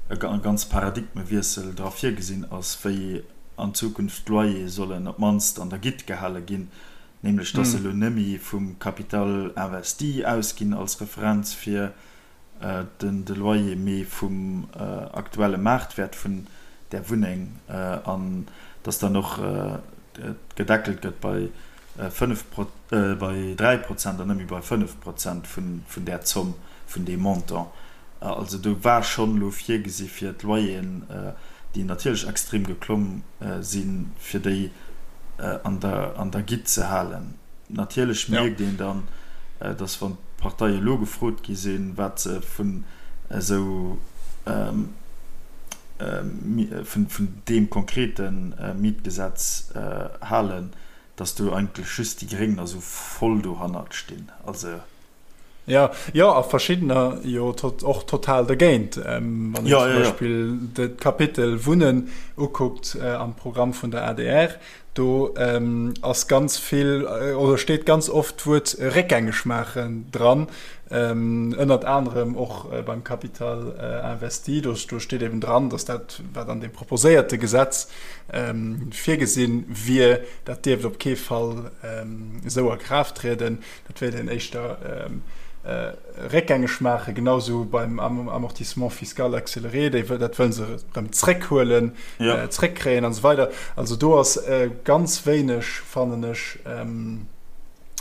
e ganz Paradigmewiessel dra virgesinn ass, wéi an Zukunft d'Loyere sollen op d'mannst an der Gitt gehale ginn, nämlech dass se elo nëmme vum Capital investi ausginn als Referenz fir den de Loyer, mee vum aktuelle Maartwäert vun där Wunneng an dass dann och gedeckelt gëtt bei 5, bei 3 Prozent an net méi bei 5 Prozent vun där Zomm, vun deem Montant. Also do war schonn elo virgesi fir d'Loyeren, déi natierlech extrem geklomm sinn, fir déi an der Gitt ze halen. Natierlech mierkt een dann, datt wann d'Parteie elo gefrot gi sinn, wat se vun esou vun deem konkrete Mietgesetz halen, dass do eigentlech just déi Gréng da sou voll dohannert stinn. Also. Jo, jo, a verschiddener jo och total dergéint. Wann een zum Beispill d'Kapitel Wunnen ukuckt am Programm vun der adr, do ass ganz vill oder steet ganz oft d'Wuert réckgängeg maachen dran, ënnert anerem och beim Capital investi. Do steet eben dran, dass dat, wat an deem proposéierte Gesetz virgesinn wier, dat dierft op kee Fall esou a Kraaft trieden. Dat wéilt een éischter réckgängeg maachen, genau esou beim Amortissement fiscal accéléré, déi, dat wëlle se erëm zréckhuelen, zréckkréien an esou weider. Also do ass ganz wéineg, fannen ech,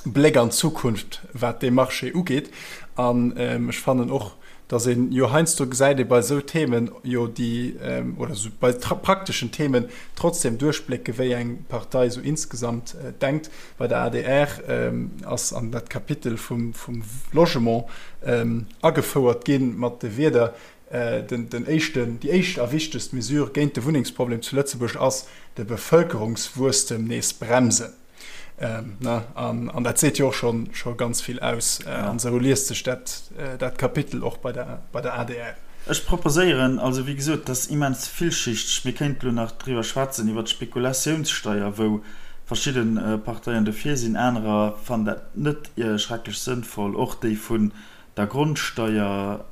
Bléck an d'Zukunft, wat dee Marché ugeet. An ech fannen och, dass een jo heiansdo gesäit ee bei esou Themen jo déi, oder esou bei prakteschen Themen trotzdem duerchblécke wéi eng Partei esou insgesamt denkt. Bei der adr ass an dat Kapitel vum Logement agefouert gi mat de Wierder, Den éischten, déi éischt a wichtegst Mesure géint de Wunnengsproblem zu Lëtzebuerg ass, de Bevëlkerungswuesstem nees bremsen. An dat seet jo och scho ganz vill aus. An esou liest sech dat Kapitel och bei der adr. Ech proposéieren, also wéi gesot, dat ass immens villschichteg, mir kéinten elo nach driwwer schwätzen, iwwert d'Spekulatiounssteier, wou verschidde Parteien dofir sinn, anerer fannen dat net schrecklech sënnvoll, och déi vun. der Grondsteier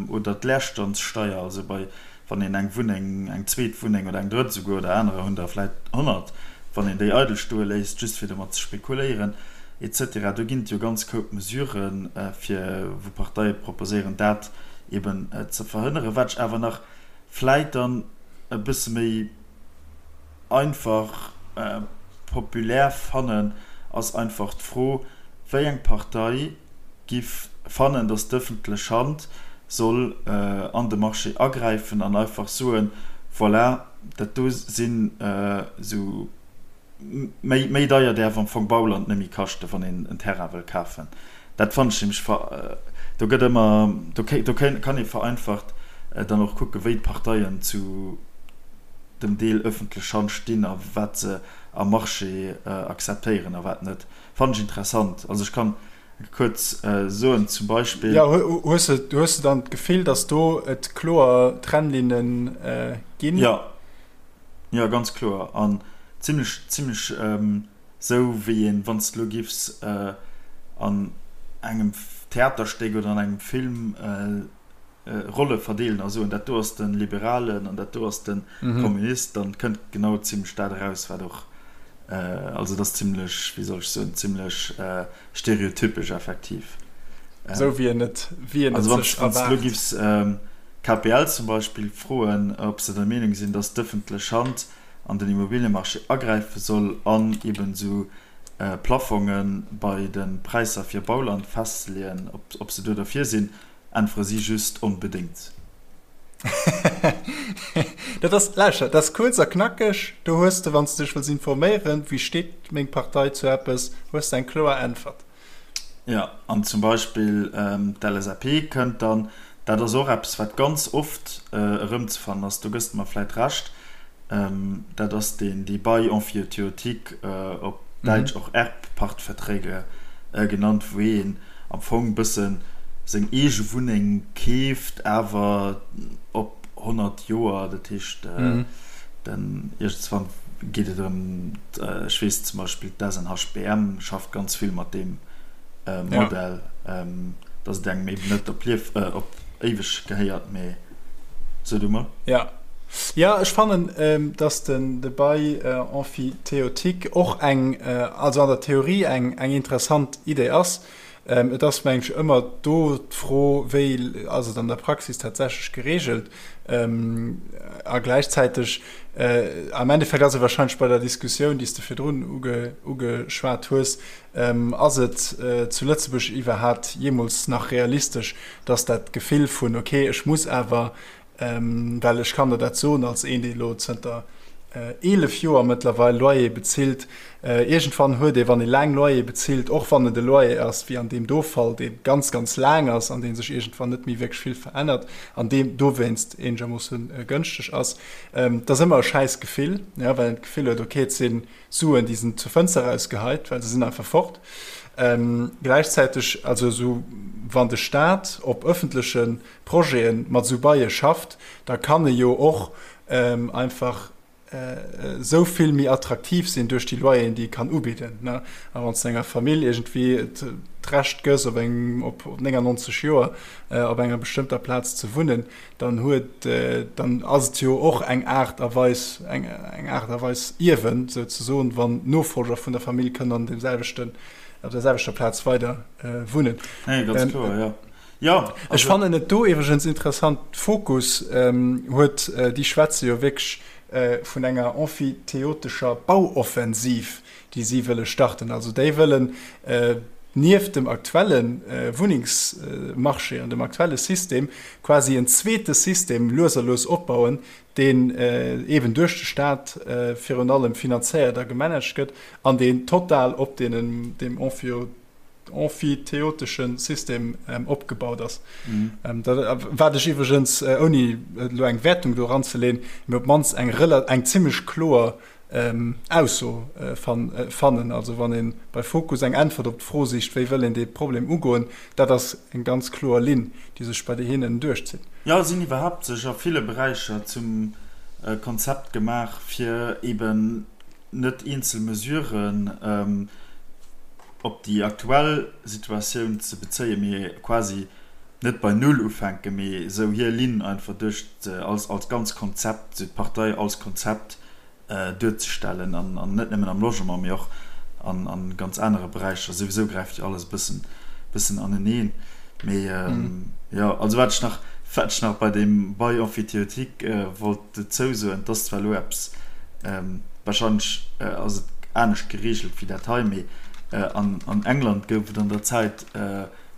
oder d'Leerstandssteier, also bei wann een eng Wunneng, eng zweet Wunneng oder eng drëtt esouguer, oder anerer hunn der vläit 100, wann een déi eidel stoe léisst, just fir domat ze spekuléieren, et cetera. Do ginn et jo ganz Koup Mesuren, fir, wou Parteie proposéieren, dat eben ze verhënneren. Wat ech awer nach vläit dann e bësse méi einfach populär fannen, ass einfach d'Fro, wéi eng Partei giff fannen, dass d'ëffentlech Hand soll an de Marché agräifen an einfach soen, voilà, dat do sinn esou méi, méi deier däerf am Fong Bauland net méi kaschten, wann een en Terrain wëll kafen. Dat fannen ech nämlech ver, do gëtt ëmmer, do do kann ee vereinfacht dann och kucken, wéi d'Parteien zu dem Deel ëffentlech Hand stinn a wat se am Marché akzeptéieren a wat net. Fannen ech interessant. Also ech kann kuerz soen, zum Beispill. Jo, hues de, hues de dann d'Gefill, datt do et kloer Trennlinne ginn? Jo, jo, ganz kloer. An zimlech, zimlech esou wéi een, wann s de elo giffs an engem Theaterstéck oder an engem Film Rolle verdeelen a soen, dat do ass de Liberalen an dat do ass de Kommunist, dann kënnt genau zimlech dat eraus, wat och, also et ass zimlech, wéi soll ech soen, zimlech stereotypesch effektiv. Esou wéi een et, wéi een et sech erwaart. Also wann s de elo giffs KPL zum Beispill froen, ob se der Meenung sinn, datt d'ëffentlech Hand an den Immobiliemarché agräife soll an eben esou Plafonge bei de Präisser fir Bauland festzeleeën, ob se do derfir sinn, Äntwere si just onbedéngt. Dat ass, lauschter, dat ass kuerz a knackeg. Do hues de, wann s de dech wëlls informéieren, wéi steet meng Partei zu eppes, hues de eng kloer Äntwert. Jo, an zum Beispill d'LSAP kënnt dann, dat ass och eppes, wat ganz oft erëmzefannen ass, do gëss de mer vläit Recht, dat ass deen, dee Bail emphytéotique, op Däitsch och Erbpachtverträge genannt, wou een am Fong bëssen seng eege Wunneng keeft, awer op 100 Joer, dat heescht den iergendswann geet et erëm, ech weess zum Beispill d'SNHBM schafft ganz vill mat deem Modell, datt et engem eben net op Lief, op éiweg gehéiert, mee so du mol. Jo, jo, ech fannen, datt den de Bail emphytéotique och eng, also an der Theorie eng interessant Idee ass. Et ass, mengen ech, ëmmer do d'Fro, wéi ass et an der Praxis tatsächlech geregelt? A gläichzäiteg, am Endeffekt ass et wahrscheinlech bei der Diskussioun, déi s de virdrun ugeschwat hues, Ass et zu Lëtzebuerg iwwerhaapt jeemools nach realistesch, dass dat Gefill vun, okay, ech muss awer, well ech kann der dat soen als een, dee elo zënter 11 Joer mëttlerweil Loyer bezilt, iergendwann huet ee, wann ee laang Loyer bezilt, och wann et e Loyer ass wéi an deem do Fall, dee ganz, ganz laang ass an dee sech iergendwann net méi wierklech vill verännert an dee dowéinst eenegermoosse gënschteg ass, et ass ëmmer e schäiss Gefill, well een d'Gefill huet, okay, et sinn Suen, déi sinn zur Fënster erausgeheit, well se sinn einfach fort. Gläichzäiteg, also esou wann de Staat op ëffentleche Projete mat esou Baie schafft, da kann e jo och einfach esou vill méi attraktiv sinn duerch déi Loyeren, déi e kann ubidden. A wann s de enger Famill iergendwéi d'Recht gëss, op engem, op 99 Joer op enger bestëmmter Plaz ze wunnen, dann huet, dann ass et jo och eng Aart a Weis, eng eng Aart a Weis Ierwen souzesoen, wann d'Nofolger vun der Famill kënnen an deem selwechten, op der selwechter Plaz weider wunnen. Nee, ganz kloer, jo. Jo, also. Ech fannen et do iwwregens interessant, Fokus huet, déi schwätze jo wierklech vun enger emphyteotescher Bauoffensiv, déi si wëlle starten. Also déi wëllen nieft dem aktuelle Wunnengsmarché an dem aktuelle System quasi en zweete System lues a lues opbauen, deen eeben duerch de Staat virun allem finanzéiert a gemanagt gëtt an deen total op deenen, deem emphyteotesche System opgebaut ass. Wat ech iwwregens, ouni elo eng Wäertung do eranzeleeën, mee op d'mannst eng eng zimmlech kloer Ausso fannen. Also wann ee bei Fokus eng Äntwert op d'Fro sicht, wéi wëll een dee Problem ugoen, dat ass eng ganz kloer Linn, déi sech bei hinnen duerchzitt. Jo, si hunn iwwerhaapt sech a ville Beräicher zum Konzept gemaach, fir eben net eenzel Mesuren op déi aktuell Situatioun ze bezéien, mee quasi. net bei Null ufänken, mee esou hir Linn einfach duerch als als ganz Konzept, esou d'Partei als Konzept duerzestellen an an net nëmmen am Logement, mee och an an ganz anere Beräicher. Souwisou gräift jo alles e bëssen bëssen aneneen. Mee jo, also wat ech nach wat ech nach bei deem Bail emphytéotique wollt dozou soen, 't ass zwar elo eppes, wahrscheinlech ass et anescht geregelt wéi dat hei, mee an an England gouf et an der Zäit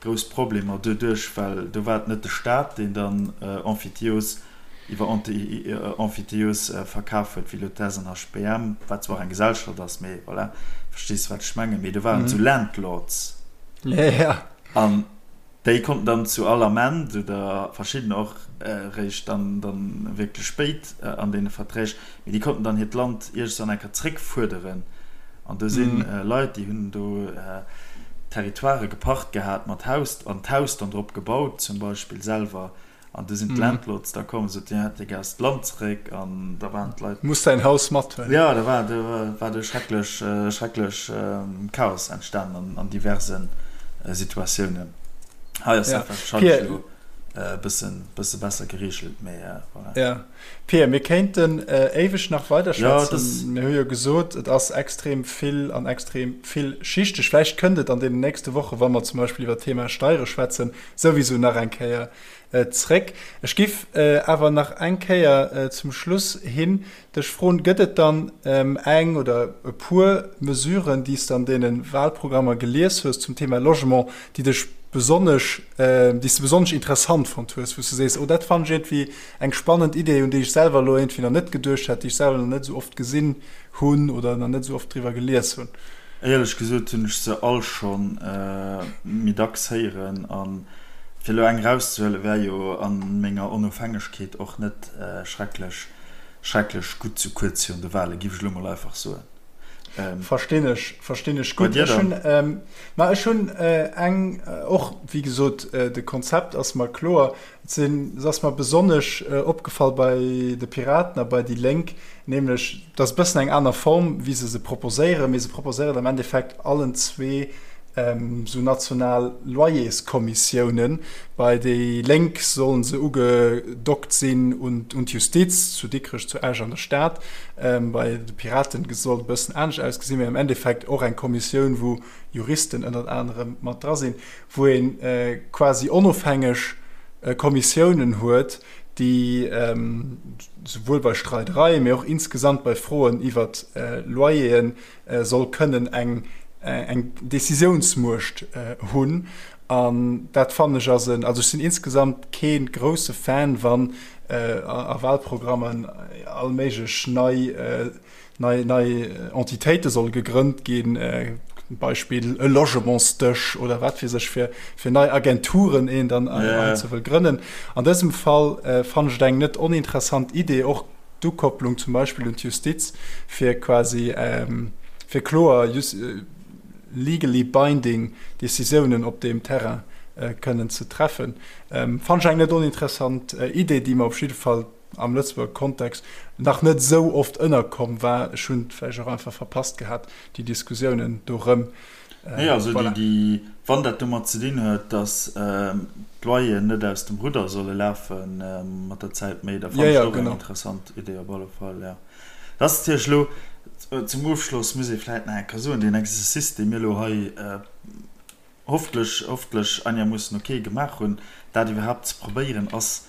grouss Problemer doduerch, well do war et net de Staat, deen dann Emphytios iwwer Emphytios verkaf huet, wéi elo d'SNHBM, wat zwar och eng Gesellschaft ass, mee voilà, verstees wat ech mengen, mee do waren et esou Landlords. An déi konnten dann zu all Ament, oder verschiddener och eréischt dann wierklech spéit an deene Verträg, mee déi konnten dann hiert Land iergendwann eng Kéier zréckfuerderen. An do si Leit, déi hunn do Territoirë gepacht gehat mat Haus, an d'Haus dann drop gebaut zum Beispill selwer. An du sinn d'Landlords da komm, sot, Dir hätt jo gär d'Land zeréck. An da waren d'Leit. Muss däin Haus mathuelen. Jo, da war, do war do schrecklech, schrecklech Chaos entstanen an diverse Situatiounen. Hei ass dat warscheinlech elo e bëssen, bësse besser gereegelt, mee voilà. Jo. Pia, mir kéinten éiweg nach weiderschwätzen. Mir hu jo gesot, et ass extrem vill an extrem villschichteg. Vläicht kënnt et an deenen nächste Wochen, wa mer zum Beispill iwwer d'Thema Steiere schwätzen, souwisou nach eng Kéier zréck. Ech giff awer nach eng Kéier zum Schluss hin dech froen, Gëtt et dann eng oder e puer Mesuren, déi s de an deene Wahlprogrammer gelies hues zum Thema Logement, déi dech besonnesch, déi s de besonnesch interessant fonnt hues, wou s de sees, oh dat fannen ech iergendwéi eng spannend Idee, un déi ech selwer elo iergendwéi nach net geduecht hätt, déi ech selwer nach net esou oft gesinn hunn oder nach net esou oft driwwer gelies hunn? Éierlech gesot hunn ech se all scho méi dacks héieren. A fir elo eng erauszehuelen, wär jo a menger Onofhängegkeet och net schrecklech, schrecklech gutt, sou kuerz virun de Wahlen, giff ech elo mol einfach soen. Verstinn ech, verstinn ech gutt. Ech hunn, ma ech hunn eng och, wéi gesot, de Konzept ass mer kloer. Et sinn, et ass mer besonnesch opgefall bei de Piraten a bei déi Lénk, nämlech, et ass e bëssen eng aner Form, wéi se se proposéieren, mee se proposéieren am Endeffekt allen zwee esou national Loyerskommissiounen. Bei déi Lénk solle se ugedockt sinn un d'Justiz, zu Dikrech, zu Esch an der Stad. Bei de Piraten soll et e bëssen anescht ausgesinn, mee am Endeffekt och eng Kommissioun, wou Juristen ënnert anerem mat dra sinn. wou ee quasi onofhängeg Kommissiounen huet, déi souwuel bei Streidereien, mee och insgesamt bei Froen iwwert Loyere soll kënnen eng Décisiounsmuecht hunn. An dat fannen ech ass en, also ech sinn insgesamt kee grousse Fan, wann a Wahlprogrammen all méiglech nei, nei, nei Entitéite solle gegrënnt ginn, Beispill e Logementsdësch oder wat weess ech fir, fir nei Agenturen een dann yeah. ze wëll grënnen. An dësem Fall äh, fannen ech et eng net oninteressant Idee, och d'Ukopplung zum Beispill un d'Justiz, fir quasi ähm, fir kloer just, äh, legally binding Decisiounen op deem Terrain äh, kënnen ze treffen. Ähm, fannen ech eng net oninteressant äh, Idee, déi mer op jidde Fall am Lëtzebuerger Kontext nach net esou oft ënnerkomm war. Ech hunn et vläicht och einfach verpasst gehat, déi Diskussiounen dorëm. Nee, also voilà. déi, wann dat domat ze dinn huet, datt d'Loyeren net aus dem Rudder solle lafe mat der Zäit méi, da fannen ech dat och eng interessant Idee op alle Fall, jo. Dat ass natierlech elo, zum Ofschloss muss ee vläicht nach eng Kéier soen, deen Exercice, dee mir elo hei hofftlech, hofftlech einermoossen ok gemaach hunn, dat iwwerhaapt ze probéieren, ass,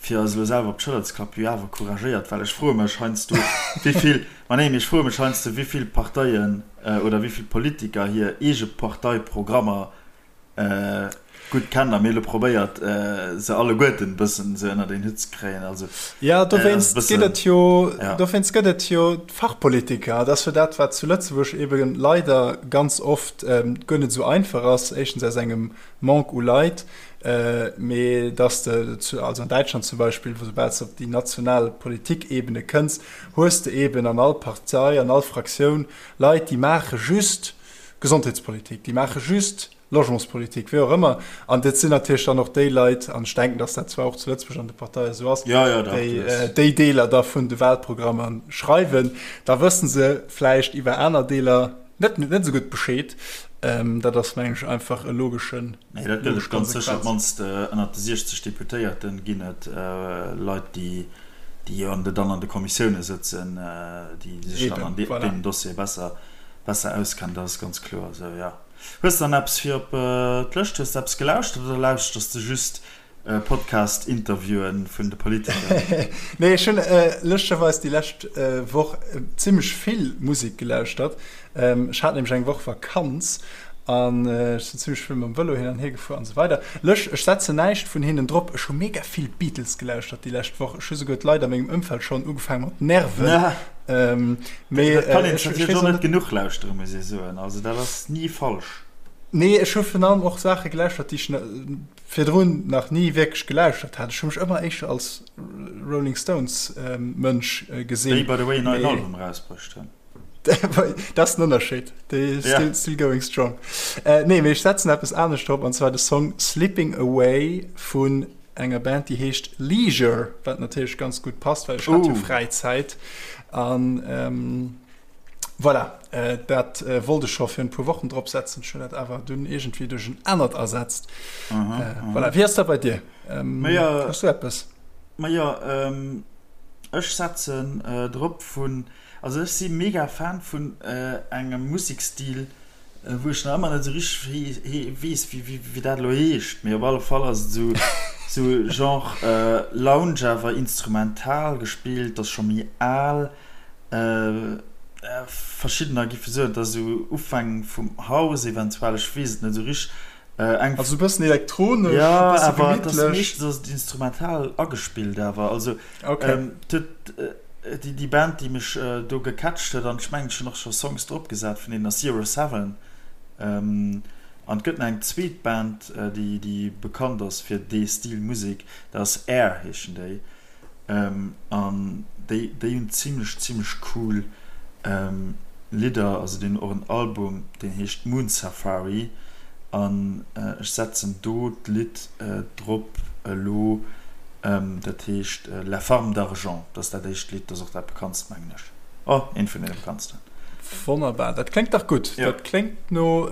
fir eis elo selwer op d'Schëller ze klappen, jo awer couragéiert, well ech froe mech heiansdo, wéi vill, ma nee, mee ech froe mech heiansdo, wéi vill Parteien oder wéi vill Politiker hir eege Parteiprogrammer gutt kennen a mir elo probéiert, se alleguerten e bëssen esou ënnert een Hutt ze kréien. Also, Jo, dowéinst gëtt et jo, dowéinst gëtt et jo d'Fachpolitiker. Dat ass jo dat, wat zu Lëtzebuerg ebe leider ganz oft guer net esou einfach ass, éischtens aus engem Manque u Leit, mee dass de, also an Däitschland zum Beispill, wou soubal s de op déi national Politikebene kënns, hues de eben an all Partei, an all Fraktioun Leit, déi maache just Gesondheetspolitik, déi maache just Logementspolitik, wéi och ëmmer. An dat sinn natierlech dann och déi Leit, an ech denken, dass dat zwar och zu Lëtzebuerg an de Parteie esou ass, déi déi Deeler da vun de Wahlprogrammer schreiwen. Da wësse se vläicht iwwer aner Deeler net net esou gutt Bescheed. Dat ass, mengen ech, einfach e logeschen. Nee, dat gëtt et ganz sécher. Op d'mannst ënnert de 60 Deputéierte ginn et Leit, déi jo dann an de Kommissioune sëtzen, déi sech dann an deenen Dossiere besser, besser auskennen. Dat ass ganz kloer esou, jo. Hues de dann eppes fir op d'Lëscht? Hues de eppes gelauschtert oder lauschters de just Podcast-Interviewen vun de Politiker? Nee, ech hunn lëschtgerweis déi lescht Woch zimmlech vill Musek gelauschtert. Ech hat nämlech eng Woch Vakanz an ech sinn zimmlech vill mam Vëlo hin an hier gefuer an esou weider. Lëscht, ech setzen näischt vun hinnen drop. Ech hu mega vill Beatles gelauschtert déi lescht Woch. Ech hu souguer d'Leit a mengem Ëmfeld schonn ugefaange mat nerven. Mee dat kann een natierlech och net genuch lauschteren, muss ee soen. Also dat ass ni falsch. Nee, ech hu virun allem och Saache gelauschtert, déi ech virdrun nach ni wierklech gelauschtert hat. Ech hu mech ëmmer éischter als Rolling Stones Mënsch gesinn. Déi by the way en neien Album erausbruecht hunn. Dat ass den Ënnerscheed. Déi still, still going strong. Nee, mee ech setzen eppes anescht drop, an zwar de Song Sleeping Away vun enger Band, déi heescht Leisure, wat natierlech ganz gutt passt, well ech hat jo Fräizäit. An Voilà, dat wollt ech scho virun e puer Wochen drop setzen, ech hunn dat awer dunn iergendwéi duerch en anert ersetzt. Voilà, wéi ass dat bei dir? Hues du eppes? Majo, ech setzen drop vun, also ech si mega Fan vun engem Musekstil, wou ech nach ëmmer net esou richteg weess, wéi dat elo heescht, mee op alle Fall ass et esou esou Genre Lounge awer instrumental gespillt, ass scho méi al. Verschiddener giffe soen, et ass esou Ufäng vum House eventuell, ech weess et net esou richteg. Eng. Also e bëssen elektronesch, e bësse gemittlech. Jo, awer et ass meeschtens ass et instrumental agespillt awer. Also et huet déi Band, déi mech do gecatcht huet, an ech mengen ech hunn och scho Songs drop gesat vun deenen, ass Zero Seven. An et gëtt nach eng zweet Band, déi bekannt ass fir dee Stil Musek, dat ass Air heeschen déi. An déi déi hunn zimlech zimlech cool Lidder, also déi hunn och en Album deen heescht Moon Safari an ech setzen do d'Lidd drop elo, dat heescht La Farme d'Argent, dat ass dat éischt Lidd, dat ass och dat bekanntst mengen ech, oh eent vun deene bekanntsten. Wonnerbar, dat kléngt dach gutt. Dat kléngt no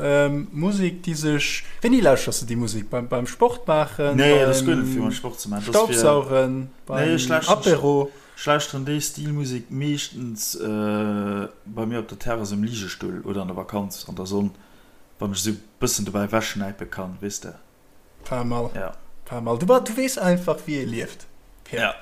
Musek déi sech, wéini lauschters de déi Musek? Beim Sport maachen, beim Staubsaugen, beim Apéro? Ech lauschteren déi Stil Musek meeschtens bei mir op der Terrass um Ligestull oder an der Vakanz an der Sonn, wann ech esou bëssen dobäi wechschnäipe kann, weess de. Pas mal. Ja. Pas mal. Du, du weess einfach, wéi ee lieft, Pierre. Ja.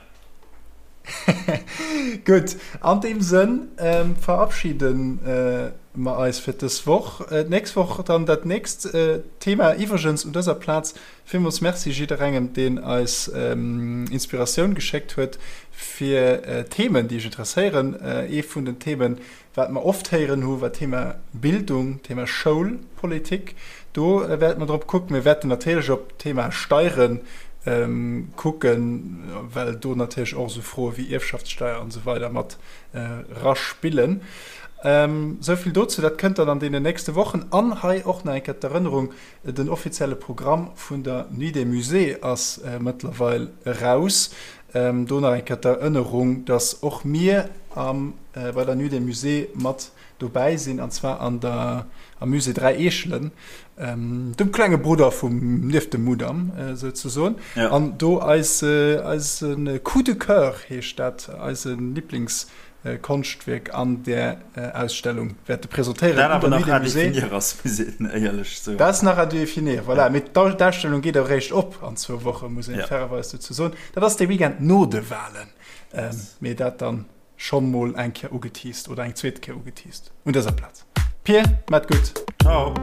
Gutt, an deem Sënn ähm, verabschieden äh, mer eis fir dës Woch. Äh, d'nächst Woch dann dat nächst äh, Thema. Iwwregens un dëser Plaz villmools Merci jidderengem, deen eis ähm, Inspiratioun geschéckt huet fir äh, Themen, déi iech interesséieren. Äh, ee vun den Themen, Wat mer oft héieren hu war d'Thema Bildung, d'Thema Schoulpolitik. Do wäerte mer drop kucken. Mir wäerten natierlech op d'Thema Steiere kucken, well do natierlech och esou Froe wéi Ierfschaftssteier an esou weider mat eraspillen. Esou vill dozou. Dat kënnt dann an deenen nächste Wochen. An hei och nach eng Kéier d'Erënnerung, Den offizielle Programm vun der Nuit des Musées ass mëttlerweil eraus. Do nach eng Kéier d'Erënnerung, dass och mir am bei der Nuit des Musées mat dobäi sinn, an zwar an der am Musée 3 Eechelen, dem klenge Brudder vum nieft dem Mudam souzesoen. An do eis eise Coup de Coeur heescht dat, eise Liblings Konschtwierk an där Ausstellung wäerte presentéieren. Dat awer nach à définir ass, muss een éierlech soen. Dat ass nach à définir, voilà. Mee d'Ausstellung geet eréischt op an zwou Wochen, muss een fairerweis dozou soen. Dat ass de Weekend no de Walen. Mee dat dann schonn mol eng Kéier ugeteased oder eng zweet Kéier ugeteased un dëser Plaz. Pir, mat gutt. Ciao.